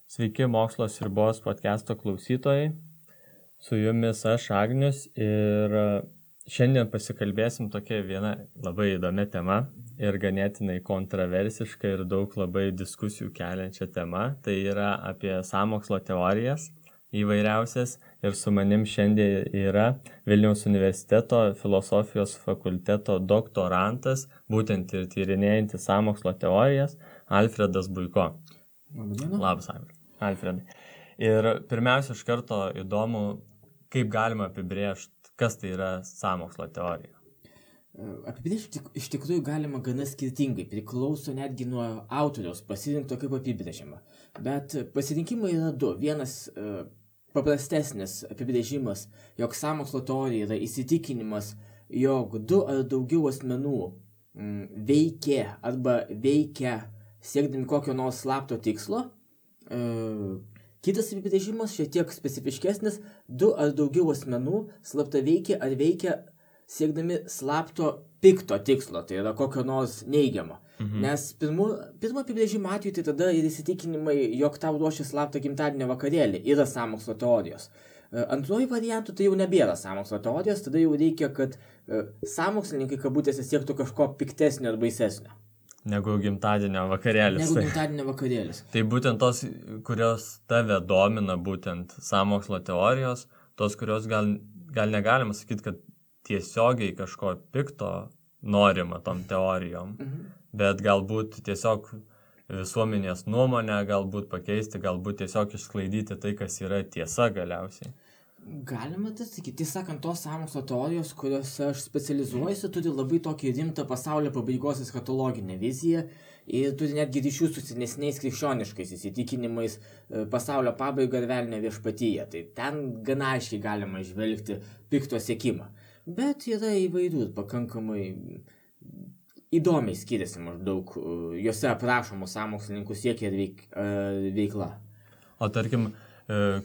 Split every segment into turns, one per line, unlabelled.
Sveiki Mokslo sriubos podcast'o klausytojai, su jumis aš Agnius ir šiandien pasikalbėsim tokia viena labai įdomia tema ir ganėtinai kontroversiška ir daug labai diskusijų keliančia tema, tai yra apie sąmokslo teorijas įvairiausias ir su manim šiandien yra Vilniaus universiteto filosofijos fakulteto doktorantas, būtent ir tyrinėjantis sąmokslo teorijas, Alfredas Buiko. Labas, Alfredai. Ir pirmiausia, iš karto įdomu, kaip galima apibrėžti, kas tai yra sąmokslo teorija.
Apibrėžti iš tikrųjų galima gana skirtingai, priklauso netgi nuo autoriaus pasirinkto kaip apibrėžimą. Bet pasirinkimai yra du. Vienas paprastesnis apibrėžimas, jog sąmokslo teorija yra įsitikinimas, jog du ar daugiau asmenų veikia siekdami kokio nors slapto tikslo. Kitas apibrėžimas, šiek tiek specifiškesnis, du ar daugiau asmenų slapta veikia siekdami slapto pikto tikslo, tai yra kokio nors neigiamo. Nes pirmo apibrėžimo atveju tai tada ir įsitikinimai, jog tau ruošia slaptą gimtadienio vakarėlį, yra sąmokslo teorijos. Antruoju variantu tai jau nebėra sąmokslo teorijos, tada jau reikia, kad sąmokslininkai kabutėse siektų kažko piktesnio ar baisesnio.
Negu gimtadienio vakarėlis. Tai būtent tos, kurios tave domina, būtent sąmokslo teorijos, tos, kurios gal negalima sakyti, kad tiesiogiai kažko pikto norima tom teorijom, bet galbūt tiesiog visuomenės nuomonę, galbūt pakeisti, galbūt tiesiog išsklaidyti tai, kas yra tiesa galiausiai.
Galima tai sakyti, tiesąkant, tos sąmokslo teorijos, kuriuose aš specializuojuosi, turi labai tokį rimtą pasaulio pabaigos eschatologinę viziją ir turi netgi ryšių su senesniais krikščioniškais įsitikinimais pasaulio pabaigą ir velnio viešpatyje. Tai ten gana aiškiai galima žvelgti pikto siekimą. Bet yra įvairių ir pakankamai įdomiai skiriasi maždaug juose aprašomų sąmokslininkų siekia ir veikla.
O tarkim,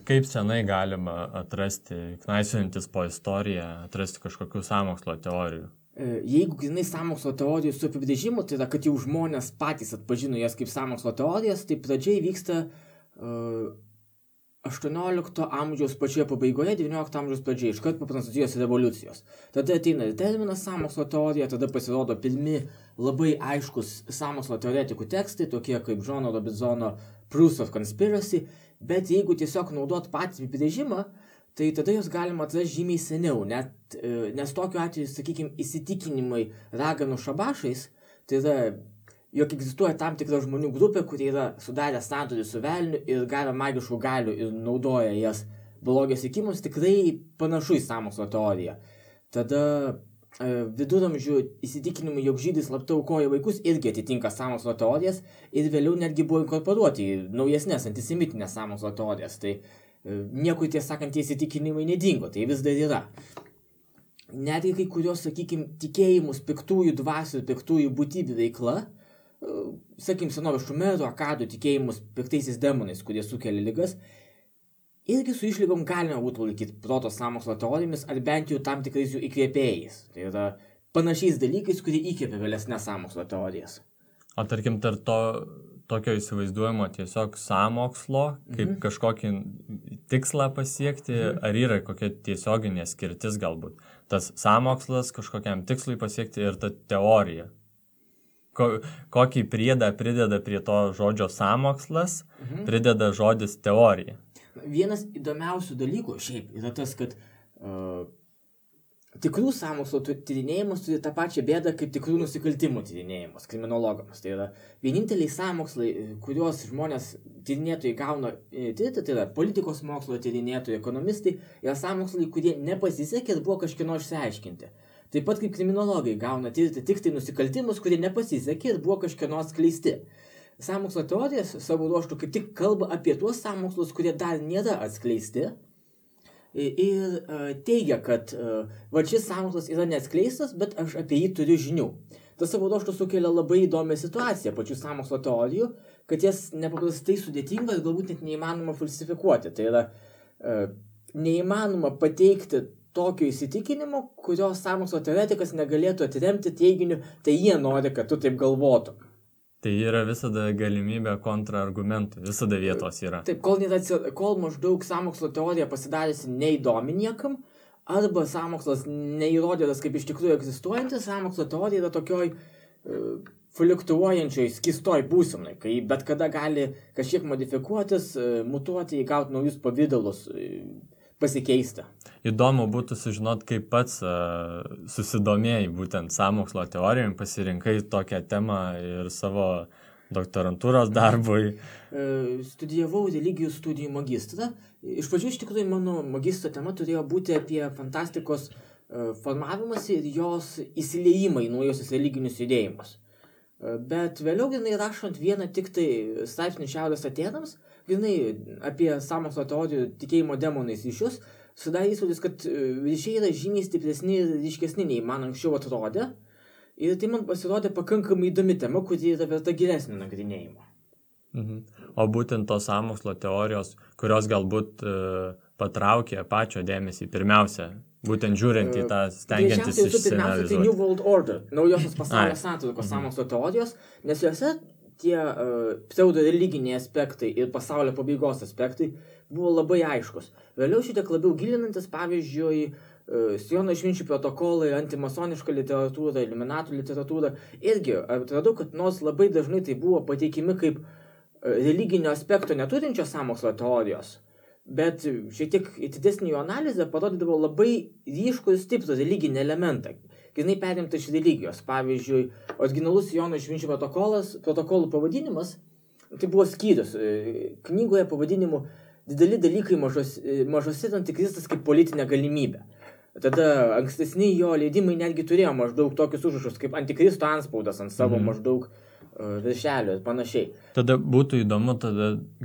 kaip senai galima atrasti, knaisiojantis po istoriją, atrasti kažkokių sąmokslo teorijų?
Jeigu grinai sąmokslo teorijų su apibrėžimu, tai yra, kad jau žmonės patys atpažino jas kaip sąmokslo teorijas, tai pradžiai vyksta 18 amžiaus pačioje pabaigoje, 19 amžiaus pradžioje, iškart po Prancūzijos revoliucijos. Tada ateina ir terminas sąmokslo teorija, tada pasirodo pirmi labai aiškus sąmokslo teoretikų tekstai, tokie kaip Johno Robinsono Proofs of Conspiracy, bet jeigu tiesiog naudot patį apibrėžimą, tai tada jos galima atrasti žymiai seniau, nes tokiu atveju, sakykime, įsitikinimai raganų šabašais, tai yra, jog egzistuoja tam tikra žmonių grupė, kurie yra sudarę sandorį su velniu ir gavę magiškų galių ir naudoja jas blogio siekimus, tikrai panašu į sąmokslo teoriją. Tada viduramžių įsitikinimai, jog žydai slapta aukoja vaikus, irgi atitinka sąmokslo teorijas ir vėliau netgi buvo inkorporuoti į naujesnės antisemitinės sąmokslo teorijas. Tai nieko tiesą sakant, tie įsitikinimai nedingo, tai vis dar yra. Netgi kai kurios, sakykime, tikėjimus piktųjų dvasių ir piktųjų būtybių veikla, sakykime, senovės šumerų, akadų tikėjimus piktaisiais demonais, kurie sukelia ligas, irgi su išlygom galima būtų laikyti proto sąmokslo teorijomis ar bent jau tam tikrais jų įkvėpėjais. Tai yra panašiais dalykais, kurie įkvėpia vėlesnes sąmokslo teorijas.
O tarkim, tarp tokio įsivaizduojamo tiesiog sąmokslo, kaip kažkokį tikslą pasiekti, ar yra kokia tiesioginė skirtis galbūt? Tas sąmokslas kažkokiam tikslui pasiekti ir ta teorija. Kokį priedą prideda prie to žodžio sąmokslas, prideda žodis teorija.
Vienas įdomiausių dalykų šiaip yra tas, kad tikrų sąmokslo tyrinėjimus turi tą pačią bėdą kaip tikrų nusikaltimų tyrinėjimus kriminologams. Tai yra vieninteliai sąmokslai, kuriuos žmonės tyrinėtojai gauna tirti, tai yra politikos mokslo tyrinėtojai, ekonomistai, yra sąmokslai, kurie nepasisekė ir buvo kažkieno išsiaiškinti. Taip pat kaip kriminologai gauna tirti tik tai nusikaltimus, kurie nepasisekė ir buvo kažkieno atskleisti. Sąmokslo teorijas savo ruožtu kaip tik kalba apie tuos sąmokslus, kurie dar nėra atskleisti ir teigia, kad šis sąmokslas yra neatskleistas, bet aš apie jį turiu žinių. Tas savo ruožtu sukelia labai įdomią situaciją pačių sąmokslo teorijų, kad jas nepaprastai sudėtinga ir galbūt net neįmanoma falsifikuoti. Tai yra neįmanoma pateikti tokio įsitikinimo, kurio sąmokslo teoretikas negalėtų atremti teiginiu, tai jie nori, kad tu taip galvotum.
Tai yra visada galimybė kontraargumentų, visada vietos yra.
Taip, kol maždaug sąmokslo teorija pasidarėsi neįdomi niekam, arba sąmokslas neįrodytas kaip iš tikrųjų egzistuojantis, sąmokslo teorija yra tokioj fluktuojančioj, skystoj būsenoj, kai bet kada gali kažkiek modifikuotis, mutuoti, įgauti naujus pavydalus, pasikeisti.
Įdomu būtų sužinoti, kaip pats susidomėjai būtent sąmokslo teorijom, pasirinkai tokią temą ir savo doktorantūros darbui.
Studijavau religijų studijų magistrą. Iš pradžių iš tikrųjų mano magistro tema turėjo būti apie fantastikos formavimas ir jos įsiliejimą į naujosius religinius judėjimus. Bet vėliau grynai rašant vieną tik tai straipsnį Šiaurės Atėnams, grynai apie sąmokslo teorijų tikėjimo demonais ryšius, sudarė įspūdis, kad ryšiai yra žymiai stipresni ir ryškesni nei man anksčiau atrodė. Ir tai man pasirodė pakankamai įdomi tema, kuri yra verta gilesnio nagrinėjimo.
O būtent tos sąmokslo teorijos, kurios galbūt patraukė pačio dėmesį pirmiausia, būtent žiūrint į tą stengiantis išsianalizuoti.
Pirmiausia, tai New World Order, naujosios pasaulio santvarkos sąmokslo teorijos, nes juose tie pseudo-religiniai aspektai ir pasaulio pabaigos aspektai buvo labai aiškus. Vėliau šitiek labiau gilinantis, pavyzdžiui, Siono išminčių protokolai, antimasoniška literatūra, Illuminatų literatūra, irgi atradau, kad nors labai dažnai tai buvo pateikimi kaip religinio aspekto neturinčios sąmokslo teorijos, bet šiek tiek didesnį jų analizę parodydavo labai ryškų ir stiprų religinį elementą, grynai perimta iš religijos. Pavyzdžiui, originalus Siono išminčių protokolų pavadinimas, tai buvo skyrius knygoje pavadinimu Dideli dalykai mažose antikristas kaip politinė galimybė. Tada ankstesni jo leidimai netgi turėjo maždaug tokius užrašus kaip antikristo antspaudas ant savo maždaug viršelio ir panašiai.
Tada būtų įdomu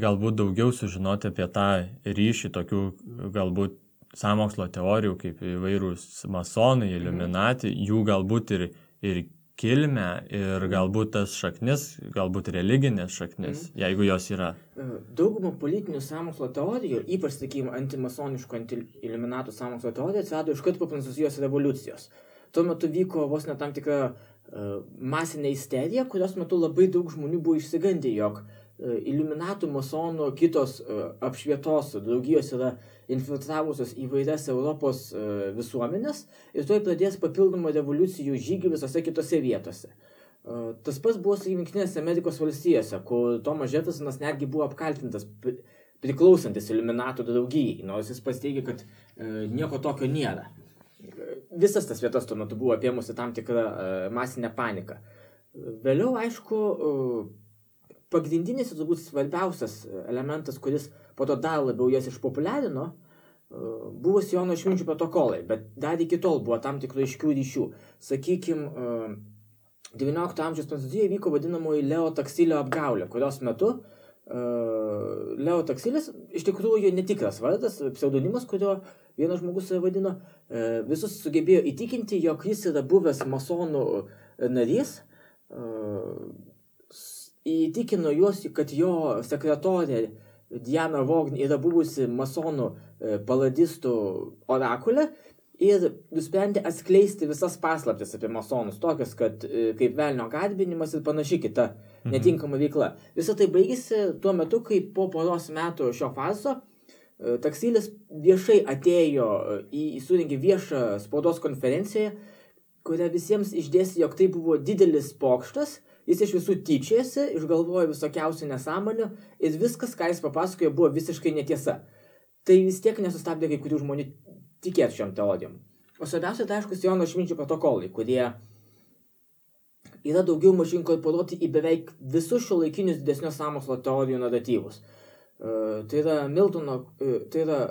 galbūt daugiau sužinoti apie tą ryšį tokių galbūt sąmokslo teorijų kaip įvairūs masonai, Illuminati, jų galbūt ir kilmę ir galbūt tas šaknis, galbūt religinės šaknis, jeigu jos yra.
Daugumą politinių sąmokslo teorijų, ypač, sakykime, antimasoniškų, anti-Illuminatų sąmokslo teorijų atsirado iškart po Prancūzijos revoliucijos. Tuo metu vyko vos ne tam tikra masinė isterija, kurios metu labai daug žmonių buvo išsigandę, jog Illuminatų, masonų, kitos apšvietos draugijos yra infiltravusios įvairias Europos visuomenės ir tuoj pradės papildomą revoliucijų žygį visose kitose vietose. Tas pats buvo su Jungtinėse Amerikos valstijose, kur Thomas Jeffersonas netgi buvo apkaltintas priklausantis Illuminatų draugijai, nors jis pats teigia, kad nieko tokio nėra. Visas tas vietas tuo metu buvo apėmusi tam tikrą masinę paniką. Vėliau, aišku, pagrindinis ir turbūt svarbiausias elementas, kuris po to dar labiau jas išpopuliarino, buvo Siono išminčių protokolai, bet dar iki tol buvo tam tikrų aiškių ryšių. Sakykime, XIX amžiaus Prancūzijoje vyko vadinamoji Leo Taksilio apgaulė, kurios metu Leo Taksilis, iš tikrųjų netikras vardas, pseudonimas, kurio vienas žmogus vadino, visus sugebėjo įtikinti, jog jis yra buvęs masonų narys, įtikino juos, kad jo sekretorė Diana Vogn yra buvusi masonų paladistų orakulė ir nusprendė atskleisti visas paslaptis apie masonus, tokias, kad kaip velnio garbinimas ir panašiai kita netinkama veikla. Visą tai baigėsi tuo metu, kai po poros metų šio farso Taksilis viešai atėjo surengė viešą spaudos konferenciją, kurią visiems išdėstė, jog tai buvo didelis pokštas. Jis iš visų tyčiasi, išgalvojo visokiausių nesąmonių ir viskas, ką jis papasakojo, buvo visiškai netiesa. Tai vis tiek nesustabdė kai kurių žmonių tikėti šiom teorijom. O svarbiausia, tai aišku, Siono išminčių protokolai, kurie yra daugiau mažiau inkorporuoti į beveik visus šiuolaikinius didesnius sąmokslo teorijų naratyvus. Tai yra Miltono, tai yra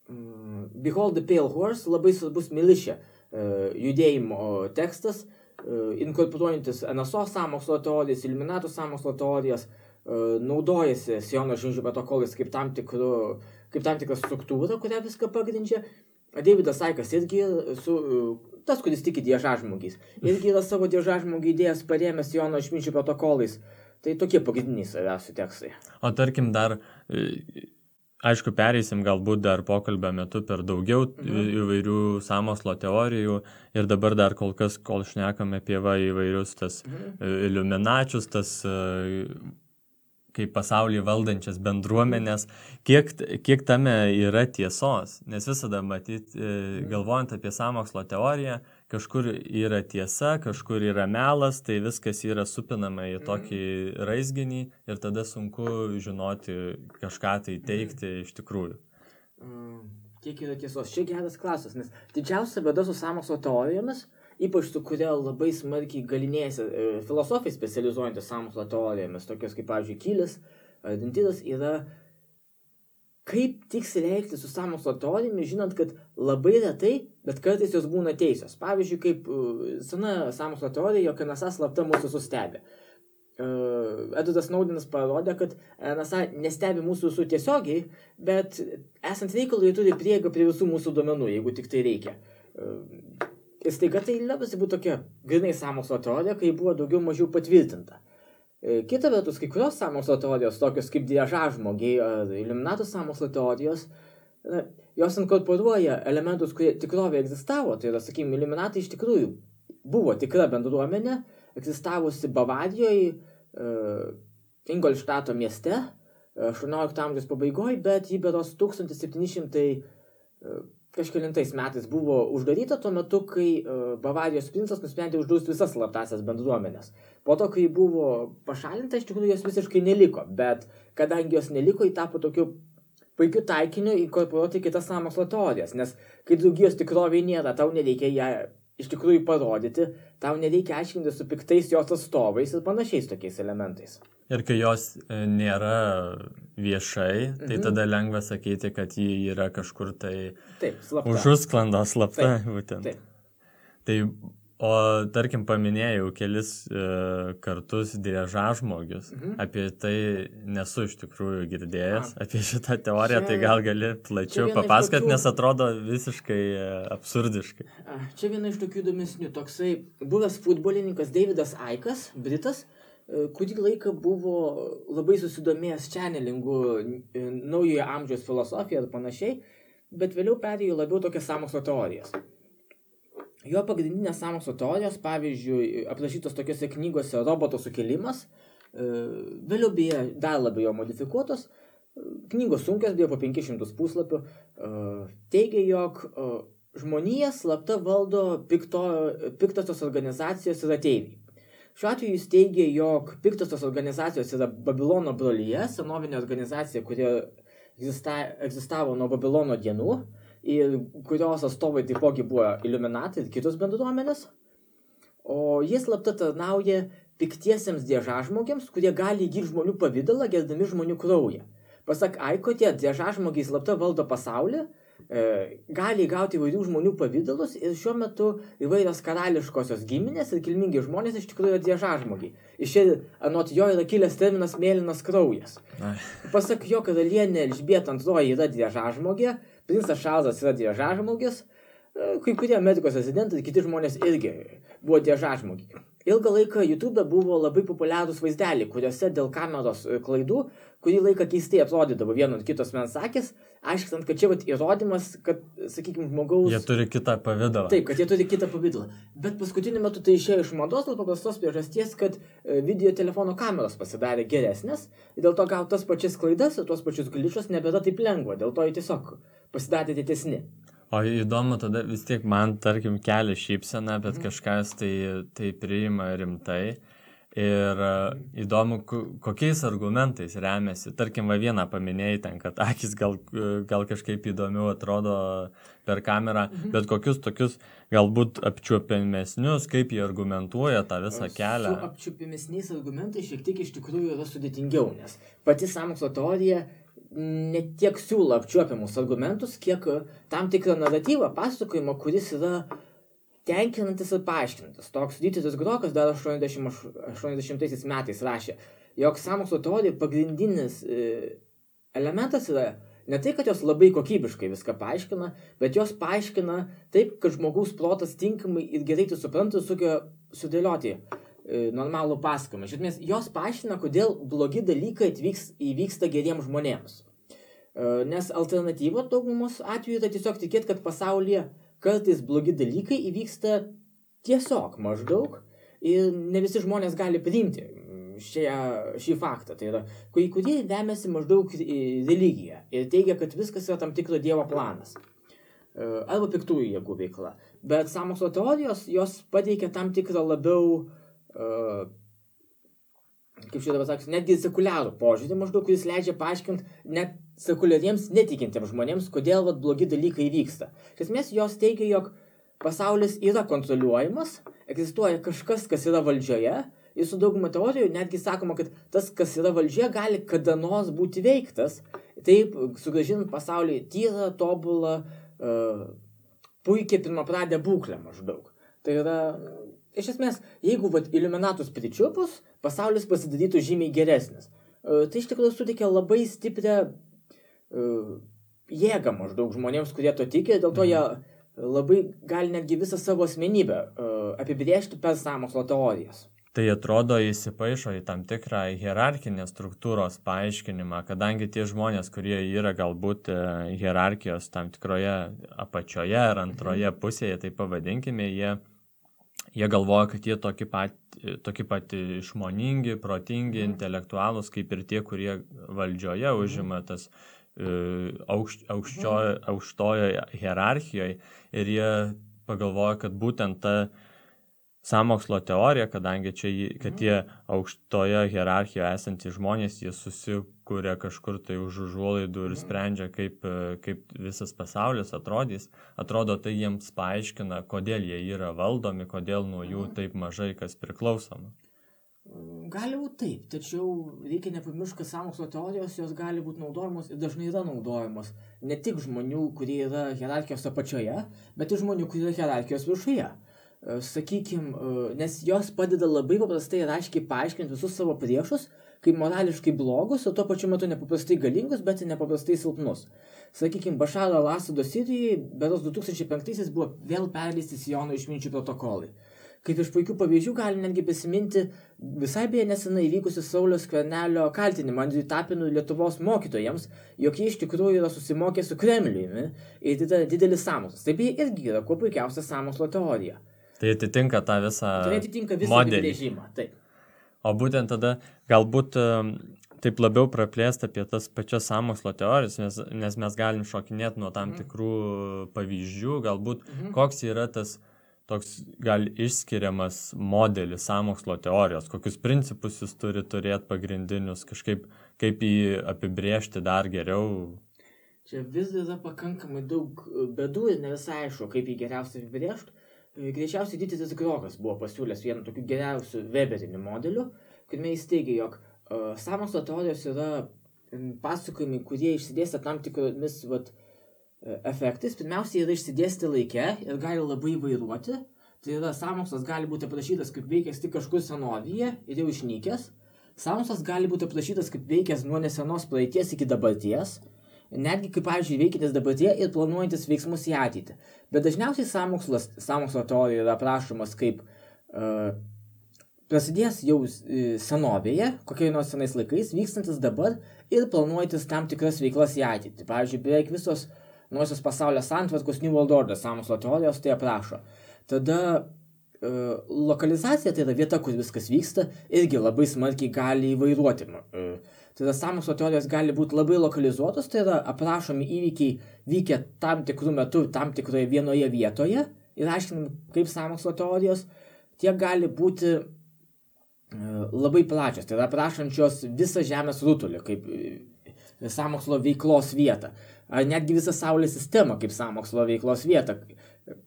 Behold the Pale Horse, labai svarbus militia judėjimo tekstas, inkorporuojantis NSO sąmokslo teorijas, Illuminatų sąmokslo teorijas, naudojasi Siono išminčių protokolais kaip tam tikra struktūra, kurią viską pagrindžia. Davidas Ickas irgi, tas, kuris tiki diežažmogiais, irgi yra savo diežažmogį idėjas parėmęs Siono išminčių protokolais. Tai tokie pagrindiniai svarbiausi tekstai.
O tarkim dar, aišku, pereisim galbūt dar pokalbio metu per daugiau įvairių sąmokslo teorijų ir dabar dar kol šnekame apie įvairius tas iliuminačius, tas kaip pasaulį valdančias bendruomenės, kiek tame yra tiesos, nes visada matyti, galvojant apie sąmokslo teoriją, kažkur yra tiesa, kažkur yra melas, tai viskas yra supinama į tokį raizginį ir tada sunku žinoti kažką tai teikti iš tikrųjų.
Kiek yra tiesos? Čia geras klausimas, nes didžiausia bėda su sąmokslo teorijomis, ypač su kuria labai smarkiai galinėjasi filosofai specializuojantis sąmokslo teorijomis, tokios kaip, pavyzdžiui, Kylis ar Dintidas, yra kaip tiksliai elgtis su sąmokslo teorijomis, žinant, kad labai retai, bet kartais jos būna teisios. Pavyzdžiui, kaip sena sąmokslo teorija, jog NSA slapta mūsų sustebė. Edvardas Snowdenas parodė, kad NSA nestebi mūsų visų tiesiogiai, bet esant reikalui turi prieigą prie visų mūsų duomenų, jeigu tik tai reikia. Ir staiga tai labiausiai buvo tokia grinai sąmokslo teorija, kai buvo daugiau mažiau patvirtinta. Kita vertus, kai kurios sąmokslo teorijos, tokios kaip driežažmogiai ar iliuminatų sąmokslo teorijos, jos inkorporuoja elementus, kurie tikrovėje egzistavo. Tai yra, sakykime, iliuminatai iš tikrųjų buvo tikra bendruomenė, egzistavusi Bavarijoje, Ingolštato mieste, 18 amžiaus pabaigoje, bet jį beros 1700 kažkelintais metais buvo uždaryta tuo metu, kai Bavarijos princas nusprendė uždrausti visas slaptąsias bendruomenės. Po to, kai buvo pašalinta, iš tikrųjų jos visiškai neliko, bet kadangi jos neliko, jį tapo tokiu puikiu taikiniu inkorporuoti kitas sąmokslo teorijas, nes kai draugijos tikrovėje nėra, tau nereikia ją iš tikrųjų parodyti, tau nereikia aiškinti su piktais jos atstovais ir panašiais tokiais elementais.
Ir kai jos nėra viešai, tai tada lengva sakyti, kad ji yra kažkur tai užusklando slapta. Būtent. Tai, o tarkim paminėjau kelis kartus driežažmogius, apie tai nesu iš tikrųjų girdėjęs, apie šitą teoriją, tai gal gali plačiau papasakoti, nes atrodo visiškai absurdiškai.
Čia viena iš tokių įdomesnių, toksai buvęs futbolininkas Davidas Ickas, britas, kurį laiką buvo labai susidomėjęs channelingu, naujojo amžiaus filosofija ir panašiai, bet vėliau perėjo labiau tokias sąmokslo teorijas. Jo pagrindinės sąmokslo teorijos, pavyzdžiui, aprašytos tokiose knygose Roboto sukilimas, vėliau beje dar labiau modifikuotos, knygos sunkios, beje po 500 puslapių, teigia, jog žmonija slapta valdo piktosios organizacijos ir ateiviai. Šiuo atveju jis teigia, jog piktosios organizacijos yra Babilono brolyje, senovinė organizacija, kuri egzistavo nuo Babilono dienų ir kurios atstovai taipogi buvo iliuminatai ir kitos bendruomenės. O jie slapta tarnauja piktiesiems driežažmogiams, kurie gali įgyti žmonių pavidalą, gerdami žmonių kraują. Pasak Aiko, tie driežažmogiai slapta valdo pasaulį, gali įgauti įvairių žmonių pavidalus ir šiuo metu įvairios karališkosios giminės ir kilmingi žmonės iš tikrųjų yra driežažmogiai. Iš čia anot jo yra kilęs terminas mėlynas kraujas. Pasak jo, karalienė Elžbieta II yra driežažmogė, princas Čarlzas yra driežažmogis, kai kurie Amerikos rezidentai ir kiti žmonės irgi buvo driežažmogiai. Ilgą laiką YouTube buvo labai populiarūs vaizdeliai, kuriuose dėl kameros klaidų, kurį laiką keistai atrodydavo vieno ir kitos mens akis, aiškinant, kad čia įrodymas, kad, sakykime, žmogaus...
Jie turi kitą pavidalą.
Taip, kad jie turi kitą pavidalą. Bet paskutiniu metu tai išėjo iš mados dėl paprastos priežasties, kad video telefono kameros pasidarė geresnės ir dėl to gauti tas pačias klaidas ir tuos pačius gličus nebėra taip lengva, dėl to jie tiesiog pasidarė didesni.
O įdomu, tada vis tiek man, tarkim, kelia šypseną, bet kažkas tai priima rimtai. Ir įdomu, kokiais argumentais remiasi. Tarkim, vieną paminėjai ten, kad akis gal kažkaip įdomiau atrodo per kamerą, bet kokius tokius galbūt apčiuopiamesnius, kaip jie argumentuoja tą visą kelią.
Su apčiuopiamesniais argumentais šiek tiek iš tikrųjų yra sudėtingiau, nes pati sąmokslo teorija ne tiek siūlo apčiuopiamus argumentus, kiek tam tikrą naratyvą, pasakojimą, kuris yra tenkinantis ir paaiškinantis. Toks Dieteris Grokas dar 80 metais rašė, jog sąmokslo teorija pagrindinis elementas yra ne tai, kad jos labai kokybiškai viską paaiškina, bet jos paaiškina taip, kad žmogaus protas tinkamai ir gerai tai supranta ir sugeba sudėlioti normalų pasakojimą. Iš esmės, jos paaiškina, kodėl blogi dalykai įvyksta geriems žmonėms. Nes alternatyva daugumos atveju yra tiesiog tikėti, kad pasaulyje kartais blogi dalykai įvyksta tiesiog maždaug ir ne visi žmonės gali priimti šį faktą. Tai yra, kurie remiasi maždaug religiją ir teigia, kad viskas yra tam tikro dievo planas. Arba piktųjų jėgų veikla. Bet sąmokslo teorijos, jos pateikia tam tikrą labiau, kaip šitą pasakysiu, netgi sekuliarų požiūrį maždaug, kuris leidžia paaiškinti net sekuliariems netikintiems žmonėms, kodėl blogi dalykai vyksta. Iš esmės, jos teigia, jog pasaulis yra kontroliuojamas, egzistuoja kažkas, kas yra valdžioje, ir su dauguma teorijų netgi sakoma, kad tas, kas yra valdžioje, gali kada nors būti veiktas, taip sugrąžinant pasaulį tyrą, tobulą, puikiai pirmapradę būklę maždaug. Tai yra, iš esmės, jeigu iliuminatus pričiupus, pasaulis pasidarytų žymiai geresnis. Tai iš tikrųjų suteikia labai stiprią jėgą maždaug žmonėms, kurie to tiki, dėl to jie labai gali netgi visą savo asmenybę apibrėžti per sąmokslo teorijas.
Tai atrodo įsipaišo į tam tikrą hierarkinės struktūros paaiškinimą, kadangi tie žmonės, kurie yra galbūt hierarchijos tam tikroje apačioje ar antroje pusėje, tai pavadinkime, jie galvoja, kad jie tokie pat išmoningi, protingi, intelektualūs, kaip ir tie, kurie valdžioje užima tas aukštojo hierarchijoje, ir jie pagalvoja, kad būtent ta sąmokslo teorija, kadangi kad tie aukštoje hierarchijoje esantys žmonės, jie susikuria kažkur tai už užuolaidų ir sprendžia, kaip visas pasaulis atrodys. Atrodo, tai jiems paaiškina, kodėl jie yra valdomi, kodėl nuo jų taip mažai kas priklausoma.
Gali būti taip, tačiau reikia nepamiršti, kad sąmokslo teorijos jos gali būti naudojamos ir dažnai yra naudojamos ne tik žmonių, kurie yra hierarchijos apačioje, bet ir žmonių, kurie yra hierarchijos viršuje. Sakykime, nes jos padeda labai paprastai ir aiškiai paaiškinti visus savo priešus, kaip morališkai blogus, o tuo pačiu metu nepaprastai galingus, bet ir nepaprastai silpnus. Sakykime, Bašaro al-Asado Sirijoje berods 2005 buvo vėl perleisti Siono išminčių protokolai. Kaip iš puikių pavyzdžių galim netgi prisiminti visai beje nesenai įvykusi Sauliaus Skvernelio kaltinimą Andriui Tapinui Lietuvos mokytojams, jog jie iš tikrųjų yra susimokę su Kremliumi ir tai yra didelis sąmokslas. Tai beje irgi yra kuo puikiausia sąmokslo teorija.
Tai atitinka tą visą
modelį. Režimą, taip.
O būtent tada galbūt taip labiau praplėsti apie tas pačias sąmokslo teorijas, nes mes galim šokinėti nuo tam tikrų pavyzdžių, galbūt koks yra tas toks gal išskiriamas modelis sąmokslo teorijos, kokius principus jis turi turėti pagrindinius, kažkaip kaip jį apibrėžti dar geriau.
Čia vis yra pakankamai daug bėdų ir ne visai aišku, kaip jį geriausiai apibrėžti. Greičiausiai Didysis Grokas buvo pasiūlęs vieną tokių geriausių Weberinių modelių, kuriame jis teigia, jog sąmokslo teorijos yra pasakojimai, kurie išsidėstę tam tikromis efektais. Pirmiausia, yra išsidėstę laike ir gali labai vairuoti. Tai yra, sąmokslas gali būti aprašytas kaip veikęs tik kažkur senovyje ir jau išnykęs. Sąmokslas gali būti aprašytas kaip veikęs nuo nesenos praeities iki dabarties. Netgi kaip, pavyzdžiui, veikiantis dabartyje ir planuojantis veiksmus į ateitį. Bet dažniausiai sąmokslo teorija yra aprašomas kaip prasidės jau senovėje, kokiai nors senais laikais, vykstantis dabar ir planuojantis tam tikras veiklas į ateitį. Pavyzdžiui, beveik visos nuosios pasaulio santvarkos New World Order sąmokslo teorijos tai aprašo. Tada lokalizacija, tai yra vieta, kur viskas vyksta, irgi labai smarkiai gali įvairuoti. Tai yra, sąmokslo teorijos gali būti labai lokalizuotos, tai yra aprašomi įvykiai vykę tam tikrų metų, tam tikroje vienoje vietoje ir aiškinam, kaip sąmokslo teorijos, tiek gali būti labai plačios, tai yra aprašančios visą Žemės rutulį, kaip sąmokslo veiklos vietą, ar netgi visą Saulės sistemą kaip sąmokslo veiklos vietą,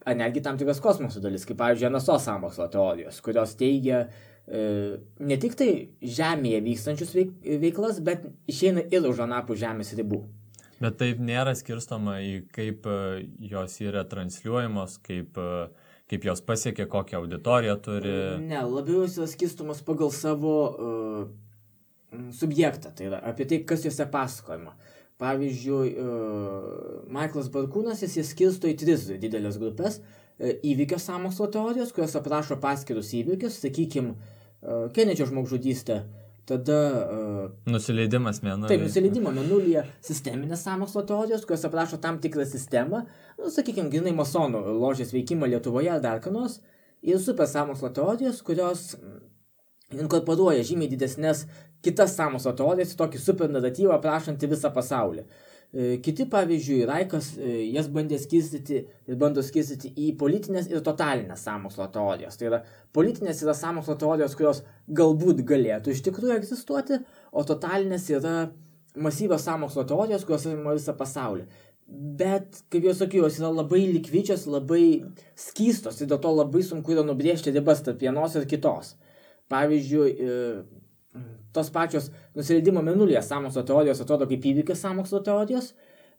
ar netgi tam tikras kosmoso dalis, kaip pavyzdžiui NSO sąmokslo teorijos, kurios teigia ne tik tai Žemėje vykstančius veiklas, bet išeina ir už anapus Žemės ribų.
Bet taip nėra skirstoma į kaip jos yra transliuojamos, kaip jos pasiekia, kokią auditoriją turi.
Ne, labiau jos yra skirstomos pagal savo subjektą, tai yra apie tai, kas jose pasakojama. Pavyzdžiui, Michaelas Barkūnas jis skirsto į 3 didelės grupės įvykio sąmokslo teorijos, kurios aprašo paskirus įvykius, sakykime, Kenedžio žmogžudystė, tada...
Nusileidimas mėnulyje.
Taip, nusileidimo mėnulyje sisteminės sąmokslo teorijos, kurios aprašo tam tikrą sistemą, sakykime, grinai masonų ložės veikimą Lietuvoje ar dar ką nors, ir super sąmokslo teorijos, kurios inkorporuoja žymiai didesnės kitas sąmokslo teorijas į tokį super naratyvą aprašantį visą pasaulį. Kiti, pavyzdžiui, Raikas jas bandė skirstyti ir bando skirstyti į politinės ir totalinės sąmokslo teorijos. Tai yra, politinės yra sąmokslo teorijos, kurios galbūt galėtų iš tikrųjų egzistuoti, o totalinės yra masyvios sąmokslo teorijos, kurios apima visą pasaulį. Bet, kaip jau sakiau, jos yra labai likvičios, labai skystos ir dėl to labai sunku yra nubrėžti ribas tarp vienos ir kitos. Pavyzdžiui, tos pačios nusileidimo mėnulyje sąmokslo teorijos atrodo kaip įvykis sąmokslo teorijos,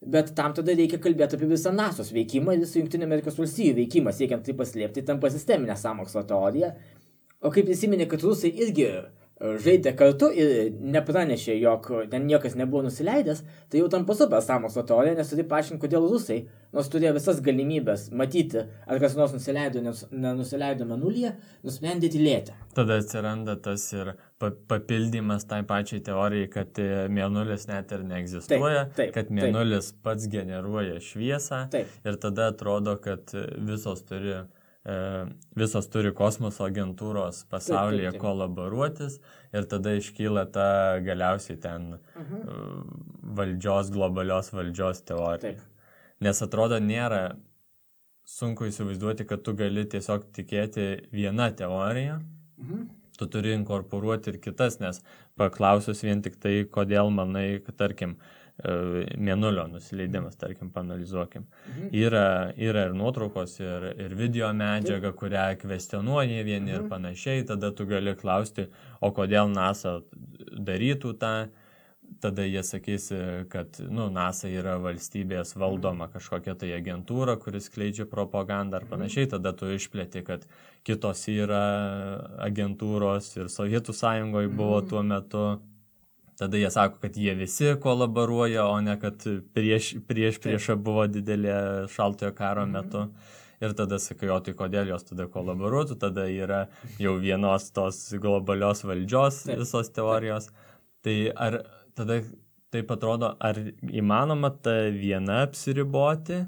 bet tam tada reikia kalbėti apie visą NASO's veikimą ir visą Jungtinių Amerikos valstijų veikimą, siekiant tai paslėpti, tampa sisteminė sąmokslo teorija. O kaip prisiminė, kad rusai irgi žaidė kartu ir nepranešė, jog ten niekas nebuvo nusileidęs, tai jau tampa super sąmokslo teorija, nes turi paaiškinti, kodėl rusai, nors turėjo visas galimybės matyti, ar kas nors nusileido, nenusileido mėnulyje, nusprendė tylėti.
Tada atsiranda tas ir papildymas tai pačiai teorijai, kad mėnulis net ir neegzistuoja, kad mėnulis pats generuoja šviesą ir tada atrodo, kad visos turi kosmoso agentūros pasaulyje kolaboruotis ir tada iškyla ta galiausiai ten globalios valdžios teorija. Nes atrodo nėra sunku įsivaizduoti, kad tu gali tiesiog tikėti vieną teoriją, tu turi inkorporuoti ir kitas, nes paklausus vien tik tai, kodėl manai, kad tarkim, mėnulio nusileidimas, tarkim, paanalizuokim. Yra ir nuotraukos, ir video medžiaga, kurią kvestionuoja vieni ir panašiai, tada tu gali klausti, o kodėl NASA darytų tą, tada jie sakys, kad NASA yra valstybės valdoma kažkokia tai agentūra, kuris skleidžia propagandą ar panašiai, tada tu išplėti, kad kitos yra agentūros ir Sovietų Sąjungoje buvo tuo metu. Tada jie sako, kad jie visi kolaboruoja, o ne kad prieš buvo didelė šaltojo karo metu. Ir tada sakai, o tai kodėl jos tada kolaboruotų, tada yra jau vienos tos globalios valdžios visos teorijos. Tai ar tada taip atrodo, ar įmanoma ta viena apsiriboti,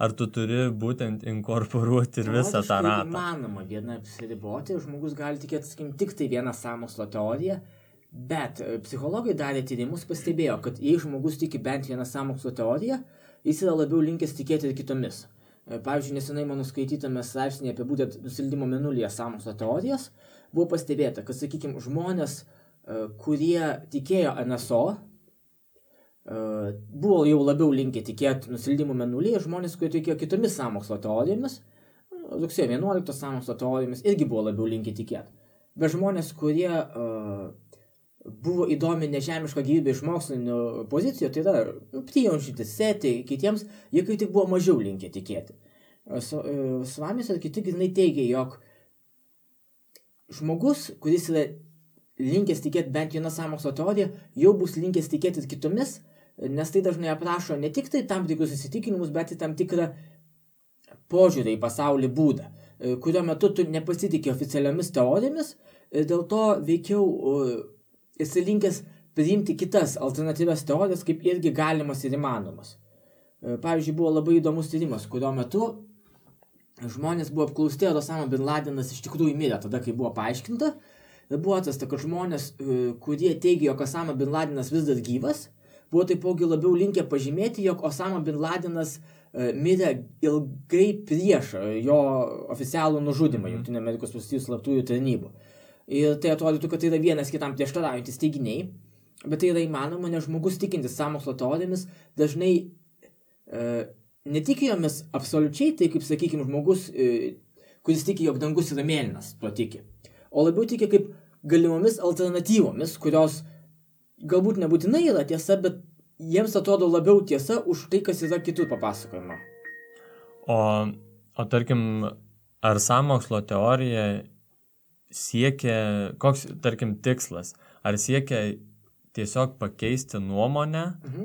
ar tu turi būtent inkorporuoti ir visą tą ratą?
Įmanoma viena apsiriboti, žmogus gali tikėti, sakykim, tik tai vieną sąmokslo teoriją. Bet psichologai darė tyrimus, pastebėjo, kad jei žmogus tiki bent vieną sąmokslo teoriją, jis yra labiau linkęs tikėti ir kitomis. Pavyzdžiui, nesenai mano skaitytame straipsnėje apie būtent nusileidimo mėnulyje sąmokslo teorijas buvo pastebėta, kad, sakykime, žmonės, kurie tikėjo NSO, buvo jau labiau linkę tikėti nusileidimo mėnulyje, žmonės, kurie tikėjo kitomis sąmokslo teorijomis, rugsėjo 11 sąmokslo teorijomis, irgi buvo labiau linkę tikėti. Bet žmonės, kurie buvo įdomi nežemiška gyvybė iš mokslinių pozicijų, tai yra prijaunšintis setį kitiems, jie kaip tik buvo mažiau linkę tikėti. Svamis ir kiti grinai teigia, jog žmogus, kuris yra linkęs tikėti bent vieną sąmokslo teoriją, jau bus linkęs tikėti kitomis, nes tai dažnai aprašo ne tik tai tam tikrus įsitikinimus, bet ir tam tikrą požiūrį į pasaulį būdą, kurio metu tu nepasitikė oficialiomis teorijomis, dėl to veikiau esi linkęs priimti kitas alternatyvias teorijas kaip irgi galimas ir įmanomas. Pavyzdžiui, buvo labai įdomus tyrimas, kurio metu žmonės buvo apklausti, ar Osama bin Ladenas iš tikrųjų mirė tada, kai buvo paaiškinta. Ir buvo atrasta, kad žmonės, kurie teigia, jog Osama bin Ladenas vis dar gyvas, buvo taipogi labiau linkę pažymėti, jog Osama bin Ladenas mirė ilgai prieš jo oficialų nužudymą Jungtinių Amerikos valstijų slaptųjų tarnybų. Ir tai atrodytų, kad tai yra vienas kitam prieštaraujantis teiginiai, bet tai yra įmanoma, nes žmogus tikintis sąmokslo teorijomis dažnai netiki jomis absoliučiai, tai kaip, sakykime, žmogus, kuris tiki, jog dangus yra mėlynas, to tiki, o labiau tiki kaip galimomis alternatyvomis, kurios galbūt nebūtinai yra tiesa, bet jiems atrodo labiau tiesa už tai, kas yra kitur papasakojama.
O tarkim, ar sąmokslo teorija siekia, koks, tarkim, tikslas, ar siekia tiesiog pakeisti nuomonę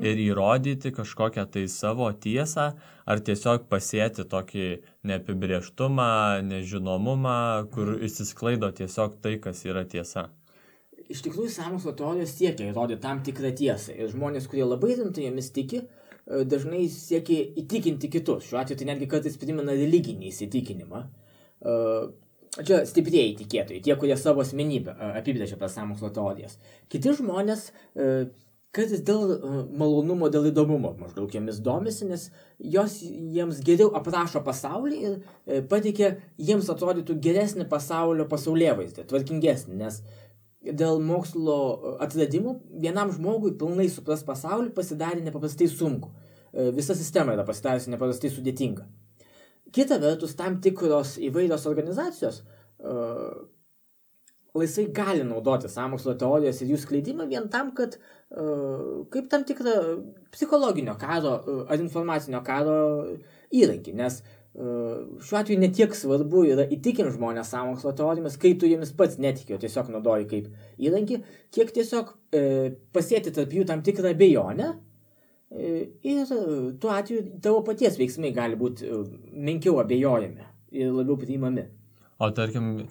ir įrodyti kažkokią tai savo tiesą, ar tiesiog pasėti tokį neapibrėžtumą, nežinomumą, kur išsisklaido tiesiog tai, kas yra tiesa?
iš tikrųjų sąmokslo teorijos siekia įrodyti tam tikrą tiesą. Ir žmonės, kurie labai rimtai jomis tiki, dažnai siekia įtikinti kitus. Šiuo atveju tai netgi kartais primena religinį įsitikinimą. Čia stiprieji tikėtojai, tie, kurie savo asmenybę apibrėžia per sąmokslo teorijas. Kiti žmonės kartais dėl malonumo, dėl įdomumo maždaug jomis domisi, nes jos jiems geriau aprašo pasaulį ir pateikia jiems atrodytų geresnį pasaulėvaizdį, tvarkingesnį, nes dėl mokslo atradimų vienam žmogui pilnai supras pasaulį pasidarė nepaprastai sunku. Visa sistema yra pasidariusi nepaprastai sudėtinga. Kita vertus, tam tikros įvairios organizacijos laisvai gali naudoti sąmokslo teorijas ir jų skleidimą vien tam, kad kaip tam tikrą psichologinio karo ar informacinio karo įrankį, nes šiuo atveju netiek svarbu yra įtikinti žmonės sąmokslo teorijomis, kai tu jomis pats netiki, o tiesiog naudoji kaip įrankį, kiek tiesiog pasėti tarp jų tam tikrą abejonę ir tuo atveju tavo paties veiksmai gali būti menkiau abejojami ir labiau priimami.
O tarkim,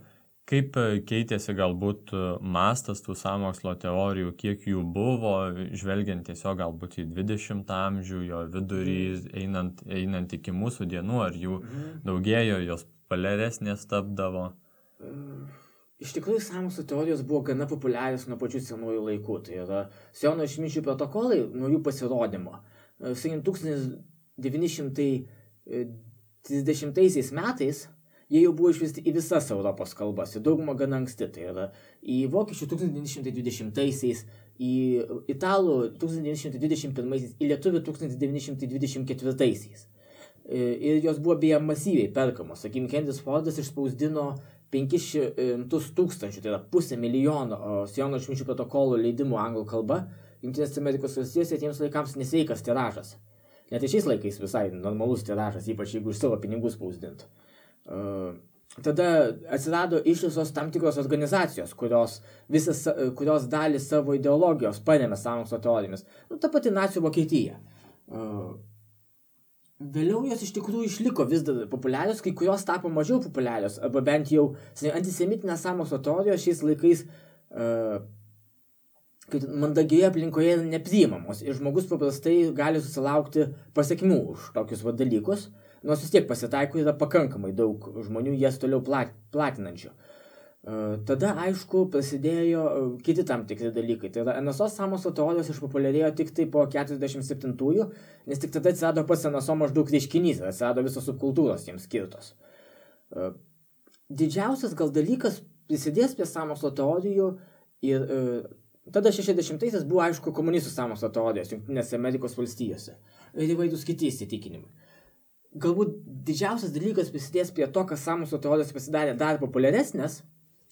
kaip keitėsi galbūt mastas tų sąmokslo teorijų, kiek jų buvo, žvelgiant tiesiog galbūt į 20 amžių, jo vidurį, einant iki mūsų dienų, ar jų daugėjo, jos populiaresnės tapdavo?
Iš tikrųjų, sąmokslo teorijos buvo gana populiarios nuo pačių senųjų laikų. Tai yra Siono išminčių protokolai nuo jų pasirodymo. 1930 metais jie jau buvo išversti į visas Europos kalbas, į daugumą gana anksti, tai yra į vokiečių 1920-aisiais, į italų 1921-aisiais, į lietuvių 1924-aisiais. Ir jos buvo beje masyviai perkamos. Sakykime, Henris Fordas išspausdino 500 tūkstančių, tai yra 500,000 Siono išminčių protokolų leidimų anglų kalba. Jungtinės Amerikos valstijose tiems laikams nesveikas tiražas. Net ir šiais laikais visai normalus tiražas, ypač jeigu iš savo pinigų spausdintų. Tada atsirado ištisos tam tikros organizacijos, kurios dalį savo ideologijos paremė sąmokslo teorijomis. Ta pati nacių Vokietija. Vėliau jos iš tikrųjų išliko vis dar populiarios, kai kurios tapo mažiau populiarios, arba bent jau antisemitinės sąmokslo teorijos šiais laikais mandagioje aplinkoje nepriimamos ir žmogus paprastai gali susilaukti pasekmių už tokius dalykus, nors vis tiek pasitaiko yra pakankamai daug žmonių jas toliau platinančių. Tada, aišku, prasidėjo kiti tam tikri dalykai. Tai yra NSO sąmokslo teorijos išpopuliarėjo tik tai po 47-ųjų, nes tik tada atsirado pats NSO maždaug reiškinys ir atsirado visos subkultūros jiems skirtos. Didžiausias gal dalykas prisidės prie sąmokslo teorijų ir tada 60-aisiais buvo, aišku, komunistų sąmokslo teorijos Jungtinėse Amerikos valstijose ir įvairūs kiti įsitikinimai. Galbūt didžiausias dalykas prisidės prie to, kad sąmokslo teorijos pasidarė dar populiaresnės,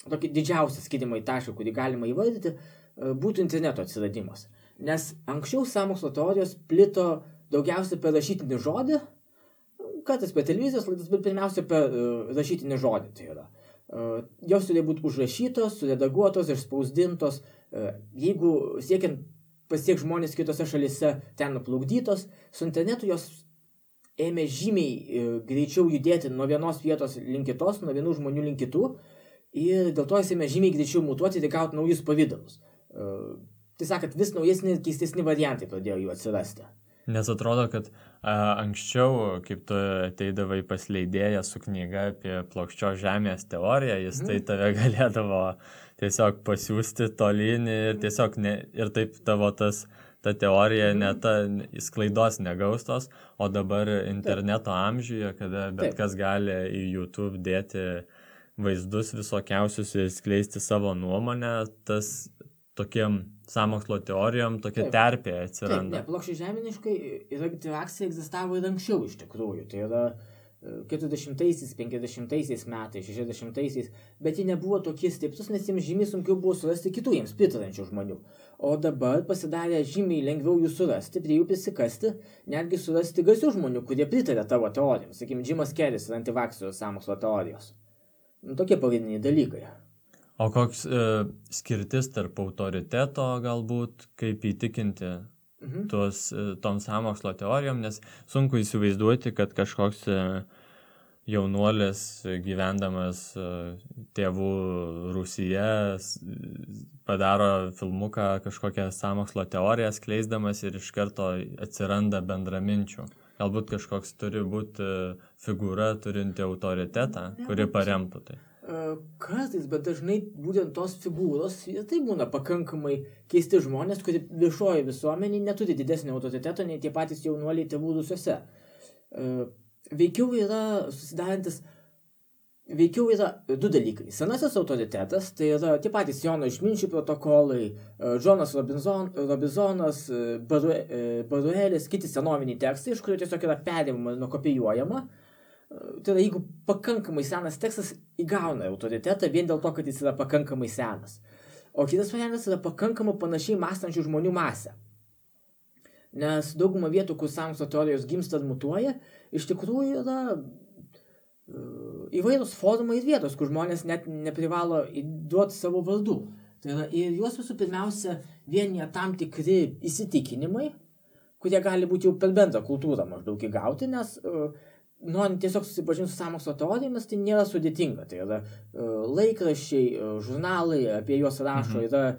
tokį didžiausią skirimo į tašką, kurį galima įvardyti, būtų interneto atsiradimas. Nes anksčiau sąmokslo teorijos plito daugiausiai per rašytinį žodį, kartais per televizijos laidas, bet pirmiausia per rašytinį žodį. Tai yra. Jos turėjo būti užrašytos, suredaguotos, išspausdintos, jeigu siekiant pasiekti žmonės kitose šalyse ten nuplukdytos, su internetu jos ėmė žymiai greičiau judėti nuo vienos vietos link kitos, nuo vienų žmonių link kitų, ir dėl to jis ėmė žymiai greičiau mutuoti ir gauti naujus pavydalus. Tai sakant, vis naujesni ir keistesni variantai pradėjo jų atsirasti.
Nes atrodo, kad anksčiau, kaip tu ateidavai pas leidėją su knyga apie plokščios žemės teoriją, jis tai tave galėdavo tiesiog pasiųsti tolyn ir tiesiog ir taip tavo ta teorija sklaidos negaustos, o dabar interneto amžiuje, kada bet kas gali į YouTube dėti vaizdus visokiausius ir skleisti savo nuomonę, tas tokiem sąmokslo teorijom tokia terpė atsiranda.
Taip, plokščiai žeminiškai reakcija egzistavo ir anksčiau iš tikrųjų. Tai yra 40-aisiais, 50-aisiais metais, 60-aisiais, bet jie nebuvo tokie stiprus, nes jiems žymiai sunkiau buvo surasti kitų jiems pritarančių žmonių. O dabar pasidarė žymiai lengviau jų surasti, prie jų prisikasti, netgi surasti garsių žmonių, kurie pritarė tavo teorijoms. Sakykime, Jimas Keris ir antivakserių sąmokslo teorijos. Tokie pagrindiniai dalykai.
O koks skirtis tarp autoriteto galbūt, kaip įtikinti tom sąmokslo teorijom, nes sunku įsivaizduoti, kad kažkoks jaunuolis gyvendamas tėvų Rusyje padaro filmuką kažkokią sąmokslo teoriją skleisdamas ir iš karto atsiranda bendraminčių. Galbūt kažkoks turi būti figūra turinti autoritetą, kuri paremtų tai.
Kartais, bet dažnai būtent tos figūros, tai būna pakankamai keisti žmonės, kurie viešoje visuomenėje neturi didesnio autoriteto, nei tie patys jaunuoliai tėvų Rusiuose. Veikiau yra du dalykai. Senasis autoritetas, tai yra tie patys Jono išminčių protokolai, Džonas Robizonas, Baruelis, kiti senoviniai tekstai, iš kurių tiesiog yra perimama ir nukopijuojama. Tai yra, jeigu pakankamai senas tekstas įgauna autoritetą vien dėl to, kad jis yra pakankamai senas. O kitas variantas yra pakankamai panašiai mąstančių žmonių masė. Nes dauguma vietų, kur sąmokslo teorijos gimsta ir mutuoja, iš tikrųjų yra įvairūs forumai ir vietos, kur žmonės net neprivalo duoti savo vardų. Tai yra, ir juos visų pirmiausia vienyje tam tikri įsitikinimai, kurie gali būti jau per bendrą kultūrą maždaug įgauti, nes norint tiesiog susipažinti su sąmokslo teorijomis, tai nėra sudėtinga. Tai yra laikraščiai, žurnalai, apie juos rašo, yra